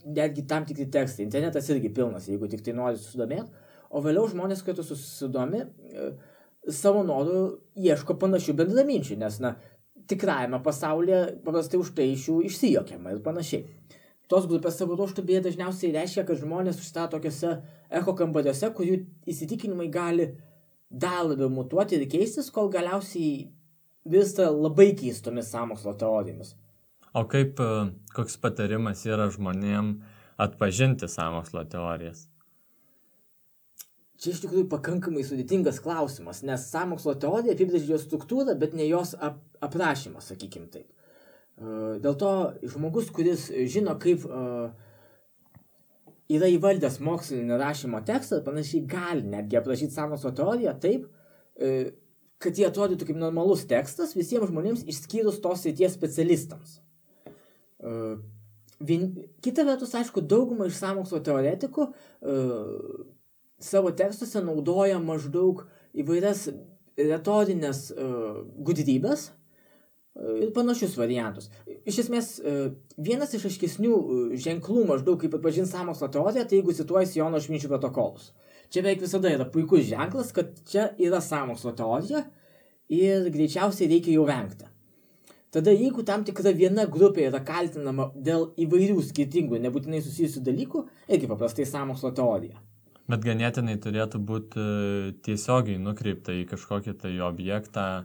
netgi tam tikri tekstai. Internetas irgi pilnas, jeigu tik tai nori susidomėti. O vėliau žmonės, kai tu susidomi, savo norų ieško panašių bendraminčių, nes, tikrajame pasaulyje paprastai už tai iš jų išsijokiama ir panašiai. Tos grupės savo ruožtu beje dažniausiai reiškia, kad žmonės užstato tokiuose echo kambariuose, kur jų įsitikinimai gali dar labiau mutuoti ir keistis, kol galiausiai virsta labai keistomis sąmokslo teorijomis.
O koks patarimas yra žmonėm atpažinti sąmokslo teorijas?
Čia iš tikrųjų pakankamai sudėtingas klausimas, nes sąmokslo teorija apibrėžia jos struktūrą, bet ne jos aprašymą, sakykim taip. Dėl to žmogus, kuris žino, kaip yra įvaldęs mokslinį rašymo tekstą, panašiai gali netgi aprašyti sąmokslo teoriją taip, kad jie atrodytų kaip normalus tekstas visiems žmonėms išskyrus tos srities specialistams. Kita vertus, aišku, dauguma iš sąmokslo teoretikų savo tekstuose naudoja maždaug įvairias retorinės gudrybės ir panašius variantus. Iš esmės, vienas iš aiškesnių ženklų maždaug kaip atpažinti sąmokslo teoriją, tai jeigu cituojasi Jono išminčių protokolus. Čia beveik visada yra puikus ženklas, kad čia yra sąmokslo teorija ir greičiausiai reikia jau vengti. Tada jeigu tam tikra viena grupė yra kaltinama dėl įvairių skirtingų, nebūtinai susijusių dalykų, irgi paprastai sąmokslo teorija.
Bet ganėtinai turėtų būti tiesiogiai nukreipta į kažkokį tai objektą.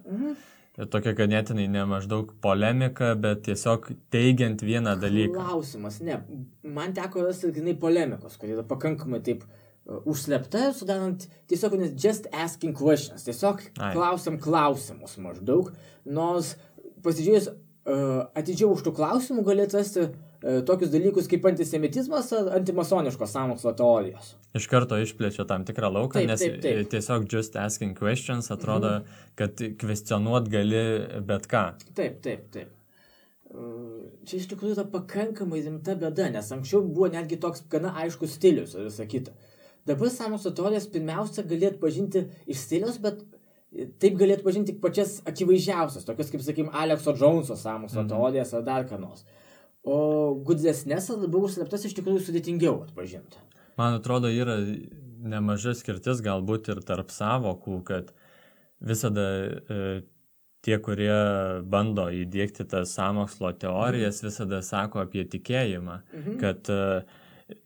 Tokia ganėtinai ne maždaug polemika, bet tiesiog teigiant vieną dalyką.
Klausimas, ne. Man teko rasti grinai polemikos, kur yra pakankamai taip užslepta, sudarant tiesiog just asking questions. Tiesiog klausiam klausimus maždaug. Nors pasižiūrėjus atidžiau už tų klausimų gali atrasti tokius dalykus kaip antisemitizmas ar antimasoniškos sąmokslo teorijos.
Iš karto išplečia tam tikrą lauką, nes tiesiog just asking questions atrodo, kad kvestionuot gali bet ką.
Taip. Čia iš tikrųjų yra pakankamai rimta bėda, nes anksčiau buvo netgi toks gana aiškus stilius ir visa kita. Dabar sąmokslo teorijas pirmiausia gali atpažinti iš stiliaus, bet taip gali atpažinti tik pačias akivaizdžiausias, tokias kaip, sakykim, Alekso Džounso sąmokslo teorijas ar dar ką nors. O gudresnės ar labiau užsleptas iš tikrųjų sudėtingiau atpažinti.
Man atrodo, yra nemaža skirtis galbūt ir tarp savokų, kad visada tie, kurie bando įdiegti tas sąmokslo teorijas, visada sako apie tikėjimą, kad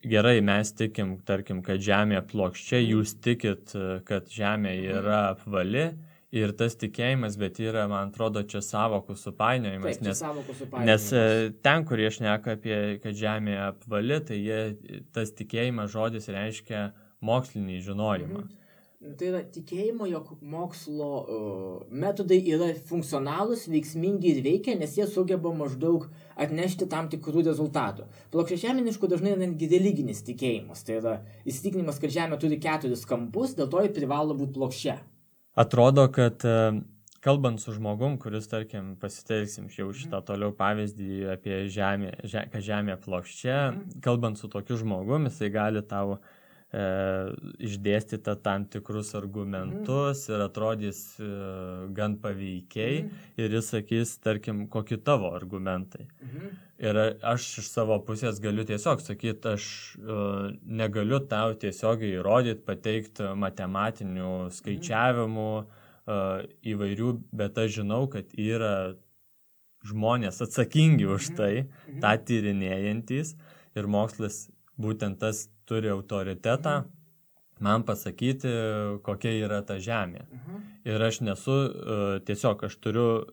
gerai, mes tikim, tarkim, kad Žemė plokščia, jūs tikit, kad Žemė yra apvali. Ir tas tikėjimas, bet yra, man atrodo, čia savokų supainiojimas, nes ten, kur jie šneka apie, kad Žemė apvali, tai tas tikėjimas žodis reiškia mokslinį žinojimą.
Tai yra tikėjimo, jog mokslo metodai yra funkcionalūs, veiksmingi ir veikia, nes jie sugeba maždaug atnešti tam tikrų rezultatų. Plokščiažeminiškų dažnai netgi religinis tikėjimas, tai yra įsitikinimas, kad Žemė turi 4 kampus, dėl to ji privalo būti plokščia.
Atrodo, kad kalbant su žmogum, kuris, tarkim, pasitelksim jau šitą toliau pavyzdį apie Žemę, kad Žemė plokščia, kalbant su tokiu žmogum, jisai gali tau išdėstyta tam tikrus argumentus ir atrodys gan paveikiai ir jis sakys, tarkim, kokie tavo argumentai. Ir aš iš savo pusės galiu tiesiog sakyti, aš negaliu tau tiesiogiai įrodyti, pateikti matematinių skaičiavimų įvairių, bet aš žinau, kad yra žmonės atsakingi už tai, tą tyrinėjantys ir mokslas būtent tas turi autoritetą man pasakyti, kokia yra ta žemė. Ir aš nesu, tiesiog aš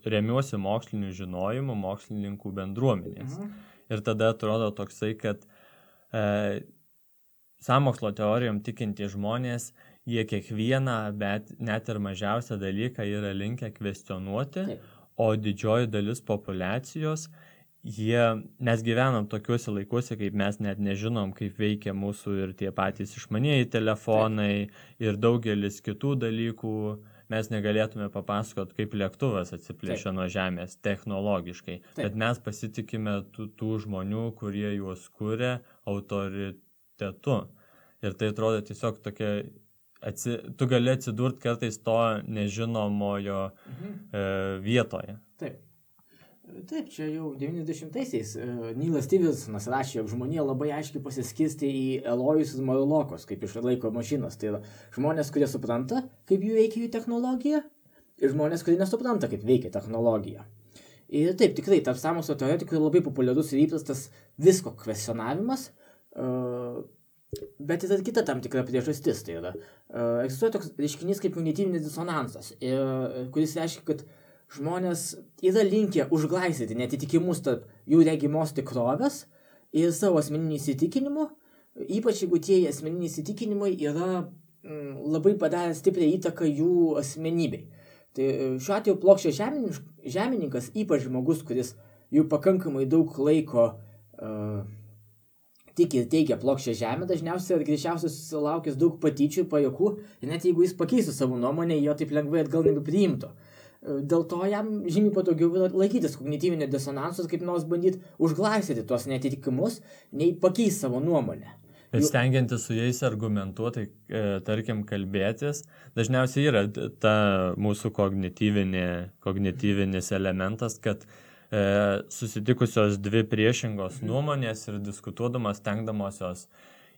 remiuosi moksliniu žinojimu, mokslininkų bendruomenės. Ir tada atrodo toksai, kad sąmokslo teorijom tikintys žmonės, jie kiekvieną, bet net ir mažiausią dalyką yra linkę kvestionuoti, o didžioji dalis populiacijos mes gyvenam tokiuose laikuose, kaip mes net nežinom, kaip veikia mūsų ir tie patys išmanieji telefonai ir daugelis kitų dalykų. Mes negalėtume papasakot, kaip lėktuvas atsiplėšia nuo žemės technologiškai. Bet mes pasitikime tų žmonių, kurie juos kuria autoritetu. Ir tai atrodo tiesiog tokia, tu gali atsidurti kartais to nežinomojo vietoje.
Taip, čia jau 90-aisiais Neilas Stevensonas rašė, jog žmonija labai aiškiai pasiskirstė į Elojus ir Marlokus, kaip iš laiko mašinos. Tai yra žmonės, kurie supranta, kaip jų veikia jų technologija, ir žmonės, kurie nesupranta, kaip veikia technologija. Ir taip, tikrai, tarp sąmokslo teoretikų labai populiarus ir įprastas visko kvestionavimas, bet yra kita tam tikra priežastis. Tai yra, egzistuoja toks reiškinys kaip kognityvinis disonansas, kuris reiškia, kad žmonės yra linkę užglaistyti netitikimus tarp jų regimos tikrovės ir savo asmeninių įsitikinimų, ypač jeigu tie asmeniniai įsitikinimai yra labai padarę stiprią įtaką jų asmenybei. Tai šiuo atveju plokščio žemininkas, ypač žmogus, kuris jau pakankamai daug laiko tiki ir teigia plokščią žemę, dažniausiai ir greičiausiai susilaukęs daug patyčių ir pajuokų, ir net jeigu jis pakeistų savo nuomonę, jo taip lengvai atgal nebepriimtų. Dėl to jam žymiai patogiau laikytis kognityvinio disonansus, kaip nors bandyti užglaistyti tuos netitikimus, nei pakeisti savo nuomonę.
Bet stengiantis su jais argumentuoti, tarkim, kalbėtis, dažniausiai yra ta mūsų kognityvinis elementas, kad susitikusios dvi priešingos nuomonės ir diskutuodamas, stengdamosios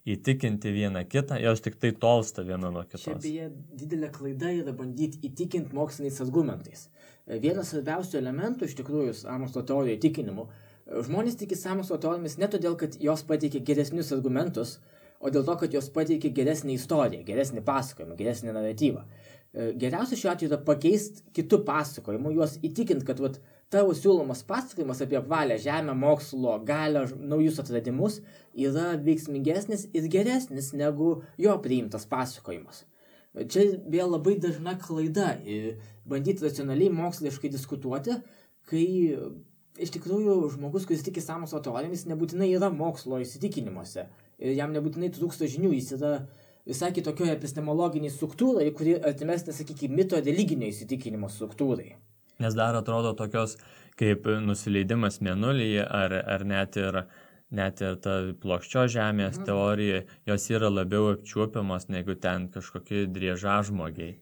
įtikinti vieną kitą, jos tik tai tolsta viena nuo kitos.
Čia beje didelė klaida yra bandyti įtikinti moksliniais argumentais. Vienas svarbiausių elementų iš tikrųjų sąmokslo teorijų įtikinimu. Žmonės tiki sąmokslo teorijomis ne todėl, kad jos pateikia geresnius argumentus, o dėl to, kad jos pateikia geresnį istoriją, geresnį pasakojimą, geresnį naratyvą. Geriausia šiuo atveju yra pakeisti kitų pasakojimų, juos įtikinti, kad tavo siūlomas pasakojimas apie apvalę žemę, mokslo, galią, naujus atradimus yra veiksmingesnis ir geresnis negu jo priimtas pasakojimas. Čia vėl labai dažna klaida bandyti racionaliai moksliškai diskutuoti, kai iš tikrųjų žmogus, kuris tiki sąmokslo teorijomis, nebūtinai yra mokslo įsitikinimuose ir jam nebūtinai trūksta žinių, jis yra visai kitokioje epistemologiniai struktūrai, kuri artimesnė, sakykime, mito religinio įsitikinimo struktūrai.
Nes dar atrodo tokios kaip nusileidimas mėnulyje ar net ir ta plokščio žemės teorija, jos yra labiau apčiuopiamas negu ten kažkokie driežažmogiai.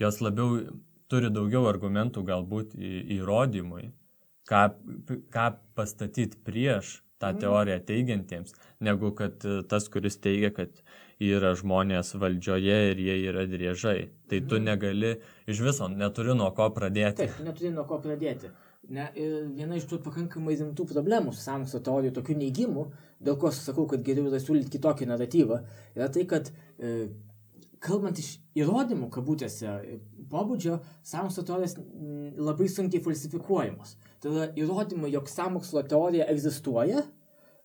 Jos labiau turi daugiau argumentų galbūt įrodymui, ką pastatyti prieš tą teoriją teigiantiems, negu kad tas, kuris teigia, kad yra žmonės valdžioje ir jie yra driežai. Tai tu negali, iš viso neturi nuo ko pradėti.
Taip, neturi nuo ko pradėti. Viena iš tų pakankamai rimtų problemų su sąmokslo teorijų, tokių neigimų, dėl ko sakau, kad geriau yra siūlyti kitokį naratyvą, yra tai, kad kalbant iš įrodymų, kabutėse, pobūdžio, sąmokslo teorijos labai sunkiai falsifikuojamos. Tai yra įrodymai, jog sąmokslo teorija egzistuoja,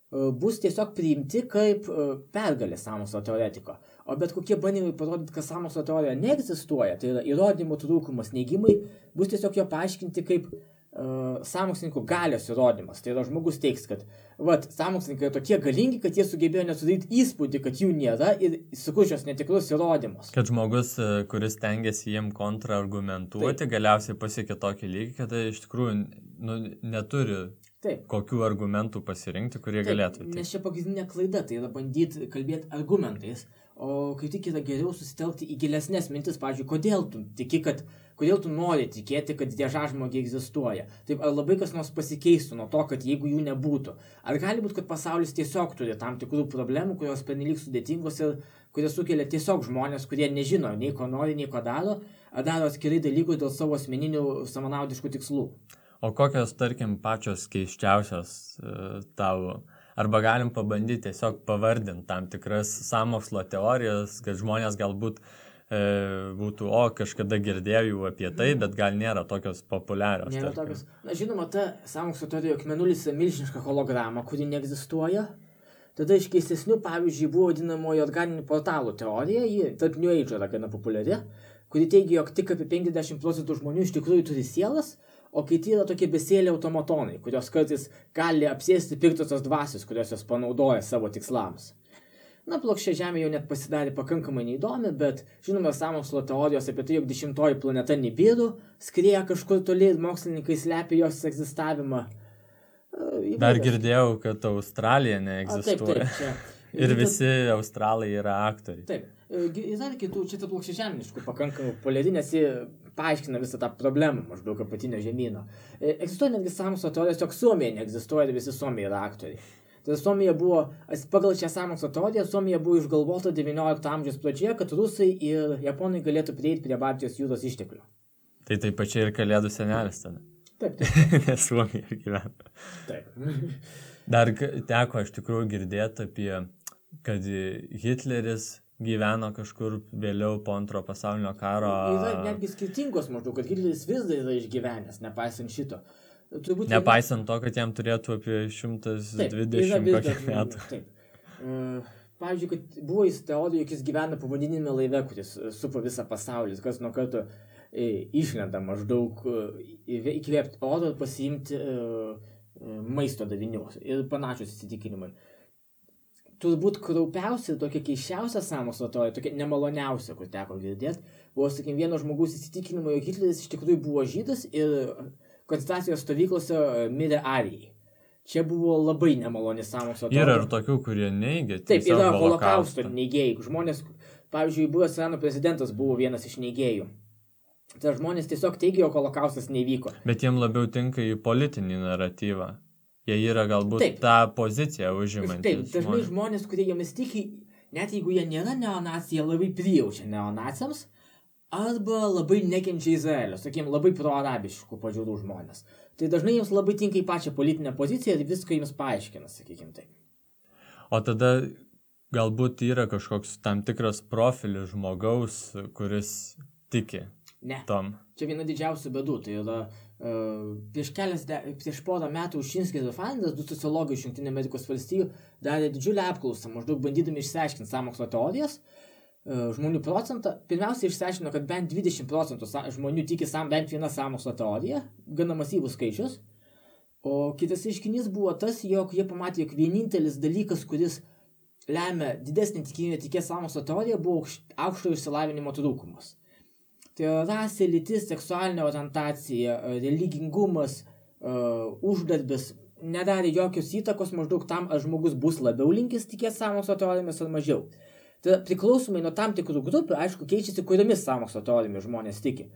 bus tiesiog priimti kaip pergalė sąmokslo teoretiko. O bet kokie bandymai parodyti, kad sąmokslo teorija neegzistuoja, tai yra įrodymų trūkumas, neigimai, bus tiesiog jo paaiškinti kaip sąmokslininkų galios įrodymas. Tai yra žmogus teiks, kad sąmokslininkai yra tokie galingi, kad jie sugebėjo nesudaryti įspūdį, kad jų nėra ir sukurs šios netikrus įrodymus.
Kad žmogus, kuris tengiasi jiem kontraargumentuoti, galiausiai pasiekia tokį lygį, kad iš tikrųjų neturi
Taip.
Kokių argumentų pasirinkti, kurie galėtų.
Nes čia pagrindinė klaida, tai yra bandyti kalbėti argumentais, o kai tik yra geriau susitelkti į gilesnės mintis, pavyzdžiui, kodėl tu nori tikėti, kad diežažmogiai egzistuoja. Taip, ar labai kas nors pasikeistų nuo to, kad jeigu jų nebūtų. Ar gali būti, kad pasaulis tiesiog turi tam tikrų problemų, kurios pernelyg sudėtingos ir kurias sukelia tiesiog žmonės, kurie nežino nei ko nori, nei ko daro, ar daro atskirai dalykus dėl savo asmeninių savanaudiškų tikslų.
O kokios, tarkim, pačios keisčiausios tavo, arba galim pabandyti tiesiog pavardinti tam tikras sąmokslo teorijas, kad žmonės galbūt būtų, kažkada girdėjau apie tai, bet gal nėra tokios populiarios.
Nėra tokios. Na, žinoma, ta sąmokslo teorija, jog mėnulis yra milžiniška holograma, kuri neegzistuoja. Tada iš keistesnių, pavyzdžiui, buvo vadinamoji organinių portalų teorija, ji tarp New Age yra gana populiari, kuri teigia, jog tik apie 50% žmonių iš tikrųjų turi sielas, o kiti yra tokie besėliai automatonai, kurios kartais gali apsėsti piktosios dvasios, kurios jos panaudoja savo tikslams. Na, plokščia Žemė jau net pasidarė pakankamai neįdomi, bet žinoma, sąmokslo teorijos apie tai, jog 10 planeta Nibiru skrieja kažkur toli ir mokslininkai slepia jos egzistavimą.
Dar girdėjau, kad Australija neegzistuoja.
Taip,
ir visi australai yra aktoriai.
Taip. Yra kitų, čia ta plokščia žeminiškų pakankamai populiari, nes ji paaiškina visą tą problemą maždaug apatinio žemyno. Egzistuoja netgi sąmokslo teorijos, jog Suomija neegzistuoja ir visi Suomija yra aktoriai. Tai Suomija buvo, pagal šią sąmokslo teoriją, Suomija buvo išgalvota 19 amžiaus pradžioje, kad rusai ir japonai galėtų prieiti prie Baltijos jūros išteklių.
Tai pačiai ir Kalėdų senelis tada.
Taip.
Nes Suomija gyvena.
Taip.
Dar teko iš tikrųjų girdėti apie, kad Hitleris gyveno kažkur vėliau po Antro pasaulinio karo.
Yra netgi skirtingos maždaug, kad Hitleris vis dar yra išgyvenęs, nepaisant šito.
Nepaisant to, kad jam turėtų apie 120 metų.
Taip. Pavyzdžiui, kad buvo jis teorija, jog jis gyvena povandeniniame laive, kuris supa visą pasaulį, kas nuo karto išlenda maždaug įkvėpti oro ir pasiimti maisto davinių ir panašius įsitikinimai. Turbūt kraupiausia, tokia keiščiausia sąmokslo teorija, tokia nemaloniausia, kur teko girdėti, buvo, sakykim, vieno žmogaus įsitikinimo, jog Hitleris iš tikrųjų buvo žydas ir koncentracijos stovyklose mirė arijai. Čia buvo labai nemaloni sąmokslo teorija.
Yra ir tokių, kurie neigia.
Taip, yra holokausto neigėjai. Žmonės, pavyzdžiui, buvęs Irano prezidentas buvo vienas iš neigėjų. Tai žmonės tiesiog teigia, jog holokaustas nevyko.
Bet jiem labiau tinka į politinį naratyvą. Jie yra galbūt tą poziciją užimantys.
Taip, dažnai žmonės, kurie jomis tiki, net jeigu jie nėra neonacijai, jie labai prijaučia neonaciams arba labai nekenčia Izraelio, sakykime, labai proarabiškų pažiūrų žmonės. Tai dažnai jiems labai tinka į pačią politinę poziciją ir viską jiems paaiškina, sakykime taip.
O tada galbūt yra kažkoks tam tikras profilis žmogaus, kuris tiki tom.
Čia viena didžiausių bėdų, tai yra prieš porą metų Ušinskis ir Faindas, du sociologai iš Jungtinių Amerikos valstijų, darė didžiulę apklausą, maždaug bandydami išsiaiškinti sąmokslo teorijas, žmonių procentą. Pirmiausia, išsiaiškino, kad bent 20% žmonių tiki bent vieną sąmokslo teoriją, gana masyvus skaičius. O kitas reiškinys buvo tas, jog jie pamatė, jog vienintelis dalykas, kuris lemia didesnį tikimybę tikėti sąmokslo teoriją, buvo aukšto išsilavinimo trūkumas. Tai rasė, lytis, seksualinė orientacija, religingumas, uždarbis nedarė jokios įtakos maždaug tam, ar žmogus bus labiau linkęs tikėti sąmokslo teorijomis ar mažiau. Tai priklausomai nuo tam tikrų grupių, aišku, keičiasi, kuriomis sąmokslo teorijomis žmonės tiki.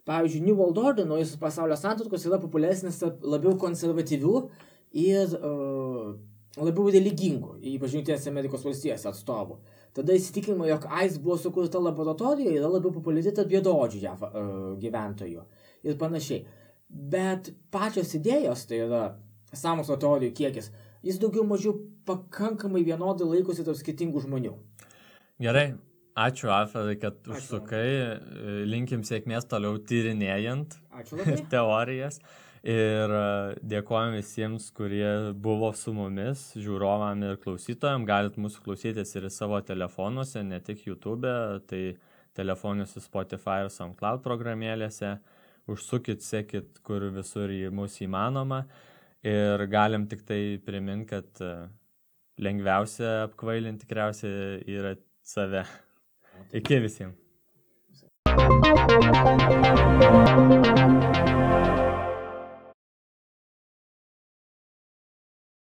Pavyzdžiui, New World Order, naujasis pasaulio santvarkos, yra populiaresnis labiau konservatyvių ir labiau religingų, ypač Jungtinėse Amerikos valstijose atstovų. Tada įsitikinimo, jog AIDS buvo sukurta laboratorijoje, yra labiau populiari tarp juodaodžių JAV gyventojų ir panašiai. Bet pačios idėjos, tai yra sąmokslo teorijų kiekis, jis daugiau mažiau pakankamai vienodai laikosi tarp skirtingų žmonių.
Gerai, ačiū Alfredai, kad užsukai, linkim sėkmės toliau tyrinėjant teorijas. Ir dėkojom visiems, kurie buvo su mumis, žiūrovam ir klausytojam. Galit mūsų klausytis ir savo telefonuose, ne tik YouTube, tai telefonuose Spotify ir SoundCloud programėlėse. Užsukit, sekit, kur visur mūsų įmanoma. Ir galim tik tai priminti, kad lengviausia apkvailinti tikriausiai yra save. Iki visiems.